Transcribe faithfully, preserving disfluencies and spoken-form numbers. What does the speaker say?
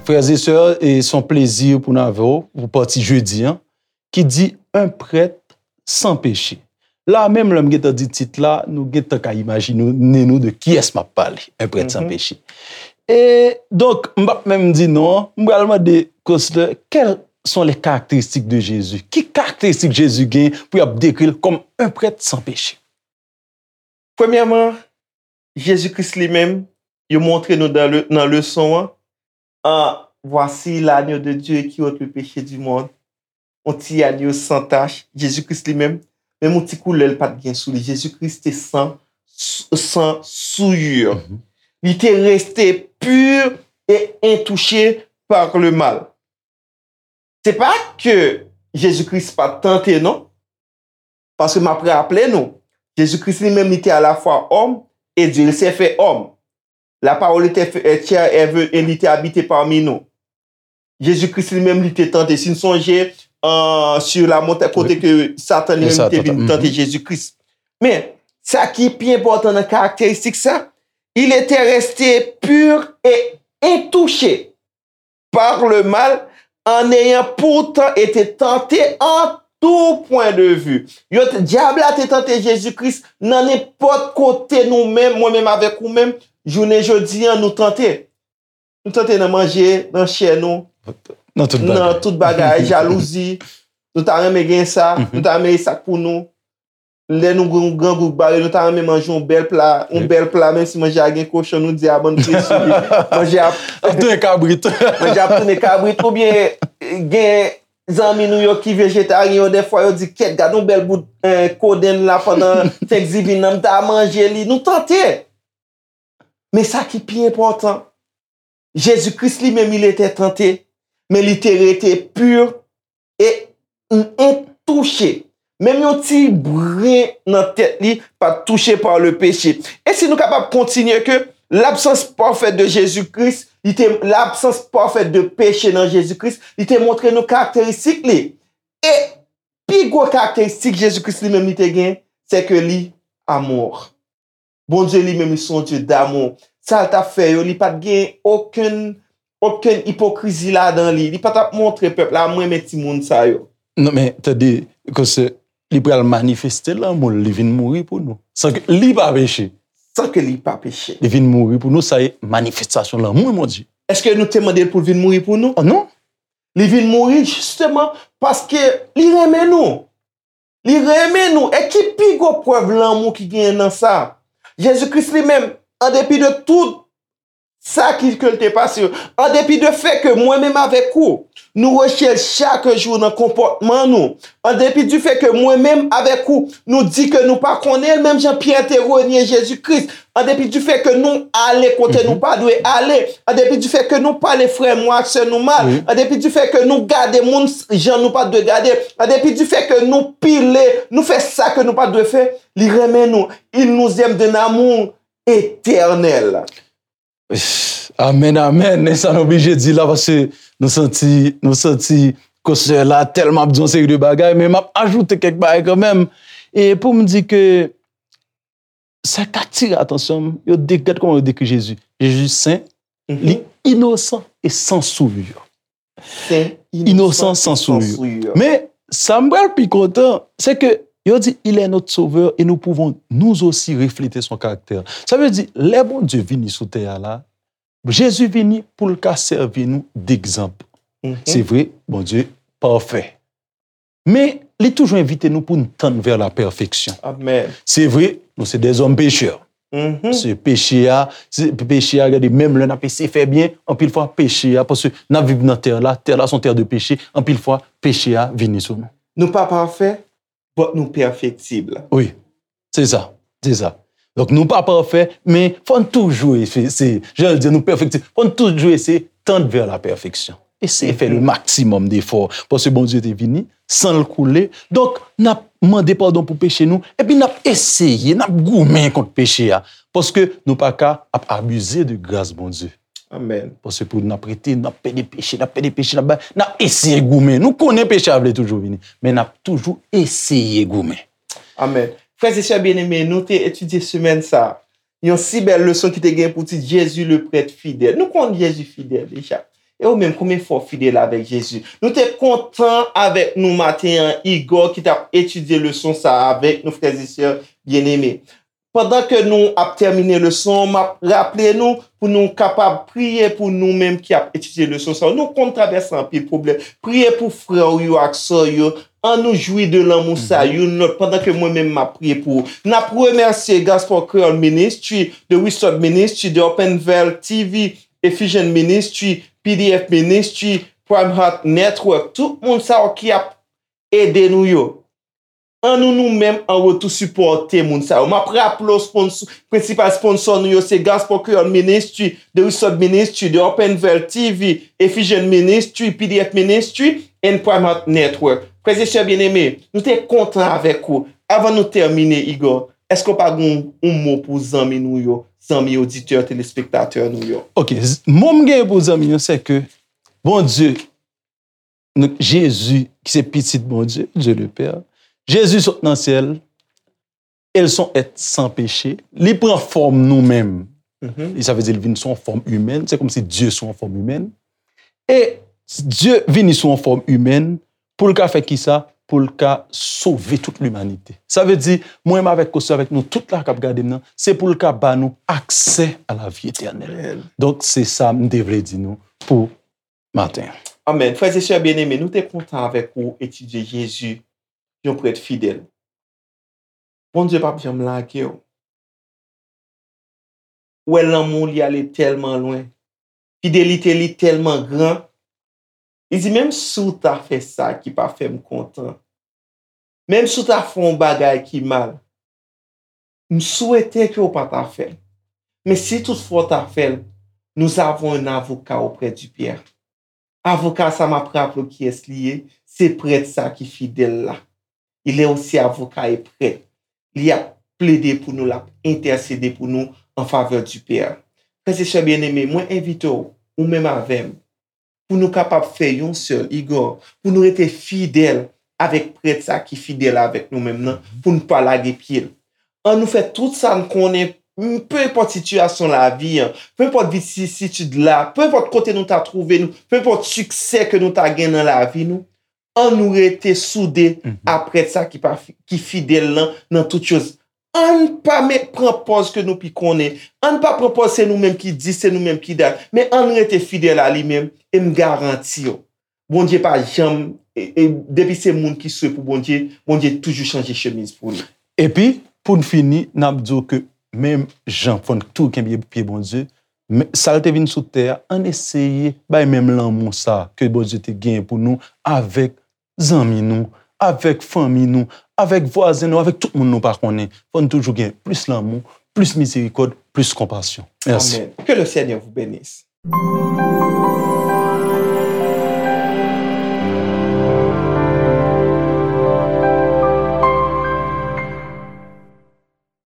Frè e sè, e se yon plezi pou n avè w pou pati jedi an, ki di, Un prêtre sans péché. La menm, lè m gentan di tit la, nou gentan ka imajine nou de kiyès m ap pale, Un prêtre sans péché. E donk, m p ap menm di non an, m pral mande Kostè, quelles sont les caractéristiques de Jésus? Ki karakteristik Jezi gen pou y ap dekri l kòm un prêtre sans péché? Premyèman, Jezi Kris li menm, yo montre nou nan le, nan leson an, an, Voici l'agneau de Dieu qui ôte le péché du monde. On ti agneau sans tache, Jezi Kris li menm, menm on ti koulè l pa t gen sou li. Jezi Kris te san, san souillure. Li te rete pur et intouché par le mal. Se pa ke Jezi Kris pa t tante non. Paske m ap raple nou, Jezi Kris li menm li te alafwa òm e Dye, il s'est fait homme. La parole était fait chair et ve- et li te abite pami nou. Jezi Kris li menm li te tante. Si n sonje an, sur la montagne, kote ke Satan li menm te vin tante Jezi Kris. Men, sa ki pi enpòtan nan karakteristik sa, il était resté pur et intouché par le mal, en ayant pourtant été tenté en tout point de vue. Yo, dyab la te tante Jezi Kris nan nenpòt kote nou menm, mwen menm avèk ou menm, jounen jodi an, nou tante. Nou tante nan manje, nan chè nou, nan tout bagay, jalouzi. Nou ta renmen gen sa, nou ta renmen sa k pou nou. Lè nou grangou k bare, nou ta renmen manje yon bèl pla, yon bèl pla, menm si manje a gen kochon, nou di a bann pye sou li. Manje a ap tounen kabrit. Manje a ap tounen kabrit. Oubyen gen zanmi nou yo ki vejetaryen yo, dèfwa yo di, kèt, gade yon bèl bout kodenn la pandan Thanksgiving nan, m ta manje li. Nou tante. Men sa ki pi enpòtan, Jezi Kris li menm, il était tenté, men li te rete pur et intouché. Menm yon ti bren nan tèt li pa t touche par le péché. E si nou kapab kontinye ke l'absence parfaite de Jésus-Christ, li te, l'absence parfaite de péché nan Jezi Kris, li te montre nou karakteristik li. E pi gwo karakteristik Jezi Kris li menm li te gen, se ke li amour. Bondye li menm, li se yon Dye damou. Sa l t ap fè yo, li pa t gen okenn, okenn ipokrizi ladan li. Li pa t ap montre pèp la, "M renmen timoun sa yo." Non, men, tande, kòm se, li pral manifeste lanmou l, li vin mouri pou nou. San ke li pa peche. San ke li pa peche. Li vin mouri pou nou, sa e manifestasyon lanmou Bondye. Èske nou te mande l pou l vin mouri pou nou? Oh non. Li vin mouri jisteman paske li renmen nou. Li renmen nou. E ki pi gwo prèv lanmou ki genyen nan sa? Jezi Kris li menm, an depi de tout sa ki, ke l te pase yo, an depi de fè ke mwen menm avèk ou, nou rejte l chak jou nan konpòtman nou, an depi di fè ke mwen menm avèk ou, nou di ke nou pa konnen l, menm jan Pyè te renye Jezi Kris, an depi di fè ke nou ale kote nou pa dwe ale, an depi di fè ke nou pale frè nou ak sè nou mal, an depi di fè ke nou gade moun jan nou pa dwe gade, an depi di fè ke nou pile, nou fè sa ke nou pa dwe fè, li renmen nou. Il nous aime d'un amour éternel. Amèn, amèn. E sa nou oblije di la, paske nou santi, nou santi konsè la tèlman ap di yon seri de bagay, men m ap ajoute kèk bagay kanmenm. E pou m di ke sa k atire atansyon m, yo de, gad kòman yo dekri Jezi. Jezi sen, li inosan e san souillure. Sen, inosan, san souillure. Men, sa m pral pi kontan, se ke yo di, Il est notre sauveur et nous pouvons nous aussi refléter son caractère. Sa vle di, lè Bondye vini sou tè a la, Jezi vini pou l ka sèvi nou degzanp. Se vre, Bondye pafè. Men, li toujou envite nou pou n tann vers la perfection. Amèn. Se vre, nou se dèzòm pechè. Se peche a, se peche a, gade, menm lè n ap eseye fè byen, anpil fwa peche a, paske n ap viv nan tè la, tè la se yon tè de peche, anpil fwa peche a vini sou nou. Nou pa pafè, but nou pèfektib. Wi, se sa, se sa. Donk nou pa pafè, men fò n toujou eseye, se, jan l di, nou pèfektib, fò n toujou eseye tend vers la perfection. Eseye fè le maximum d'effort. Paske Bondye te vini san l koule. Donk, n ap mande padon pou peche nou. Epi n ap eseye, n ap goumen kont peche a. Paske nou pa ka ap abize de gras Bondye. Amèn. Paske pou n ap rete, n ap pede peche, n ap pede peche, n ap bay, n ap eseye goumen. Nou konnen peche a vle toujou vini, men n ap toujou eseye goumen. Amèn. Frè e sè byeneme, nou te etidye semèn sa a yon si bèl leson ki te gen pou tit Jezi le prèt fidèl. Nou konn Jezi fidèl deja. E ou menm, konbyen fwa w fidèl avèk Jezi? Nou te kontan avèk nou maten an, Igò ki t ap etidye leson sa a avèk nou, frè e sè byeneme. Pandan ke nou ap tèmine leson, m ap raple nou pou nou kapab priye pou nou menm ki ap etidye leson sa yo. Nou konn travèse anpil pwoblèm. Priye pou frè w yo ak sè w yo. An nou jwi de lanmou sa youn lòt pandan ke mwen menm m ap priye pou ou. N ap remèsye Gospel Creole Ministry, The Restored Ministry, The Open Veil T V, Ephesian Ministry, P D F Ministry, Prime Heart Network, tout moun sa yo ki ap ede nou yo. An nou nou menm an retou sipòte moun sa yo. M ap raple w sponsò, prensipal sponsò nou yo se Gospel Creole Ministry, The Restored Ministry, The Open Veil T V, Ephesian Ministry, P D F Ministry, and Prime Heart Network. Frè e sè byeneme, nou te kontan avèk ou. Avan nou tèmine, Igò, èske w pa gen yon mo pou zanmi nou yo, zanmi oditè, telespektatè nou yo? Ok, mo m gen pou zanmi yo, se ke Bondye, Jezi, ki se pitit Bondye, Dieu le Père, Jezi sot nan syèl, e l se yon èt san peche, li pran fòm nou menm. E sa vle di li vin sou yon fòm imèn, se kòmsi Dye sou yon fòm imèn. E Dye vini sou yon fòm imèn pou l ka fè kisa? Pou l ka sove tout limanite. Sa vle di, mwen menm avèk Kosyo, avèk nou tout la k ap gade m nan, se pou l ka ba nou aksè a lavi etènèl. Donk, se sa m te vle di nou pou maten an. Amèn. Frè e sè byeneme, nou te kontan avèk ou etidye Jezi, yon prèt fidèl. Bondye p ap janm lage w. Ou wè lanmou li ale tèlman lwen. Fidelite li tèlman gran. Li di, menm si w ta fè sa ki pa fè m kontan, menm si w ta fè yon bagay ki mal, m swete ke w pa ta fè l. Men si toutfwa w ta fè l, nous avons un avocat auprès du Père. Avoka sa m ap raple w kiyès li ye, se prèt sa ki fidèl la. Il est aussi avocat et prêtre. Li ap plede pou nou, l ap entèsede pou nou an favè du Père. Frè e sè byeneme, mwen envite w, ou menm avè m, pou nou kapab fè yon sèl, Igò, pou nou rete fidèl avèk prèt sa ki fidèl avèk nou menm nan, pou n pa lage pye l. An nou fè tout sa n konnen, m, pe enpòt sitiyasyon lavi an, pe enpòt vicisitid la, pe enpòt kote nou ta twouve nou, pe enpòt siksè ke nou ta gen nan lavi nou, an nou rete soude a prèt sa ki pa fi- ki fidèl lan nan tout choz. An pa met pran pòz ke nou pi konnen. An pa pran pòz se nou menm ki di, se nou menm ki dat. Men an rete fidèl a li menm, e m garanti w, Bondye pa janm, e, e, depi se moun ki swe pou Bondye, Bondye toujou chanje chemiz pou li. Epi, pou n fini, n ap di w ke menm jan fò n tou kenbe pye Bondye, men, sa l te vin sou tè a, ann eseye bay menm lanmou sa ke Bondye te genyen pou nou avèk zanmi nou, avèk fanmi nou, avèk vwazen nou, avèk tout moun nou pa konnen. Fò n toujou gen plis lanmou, plis mizerikòd, plis konpasyon. Mèsi. Amen. Que le Seigneur vous bénisse.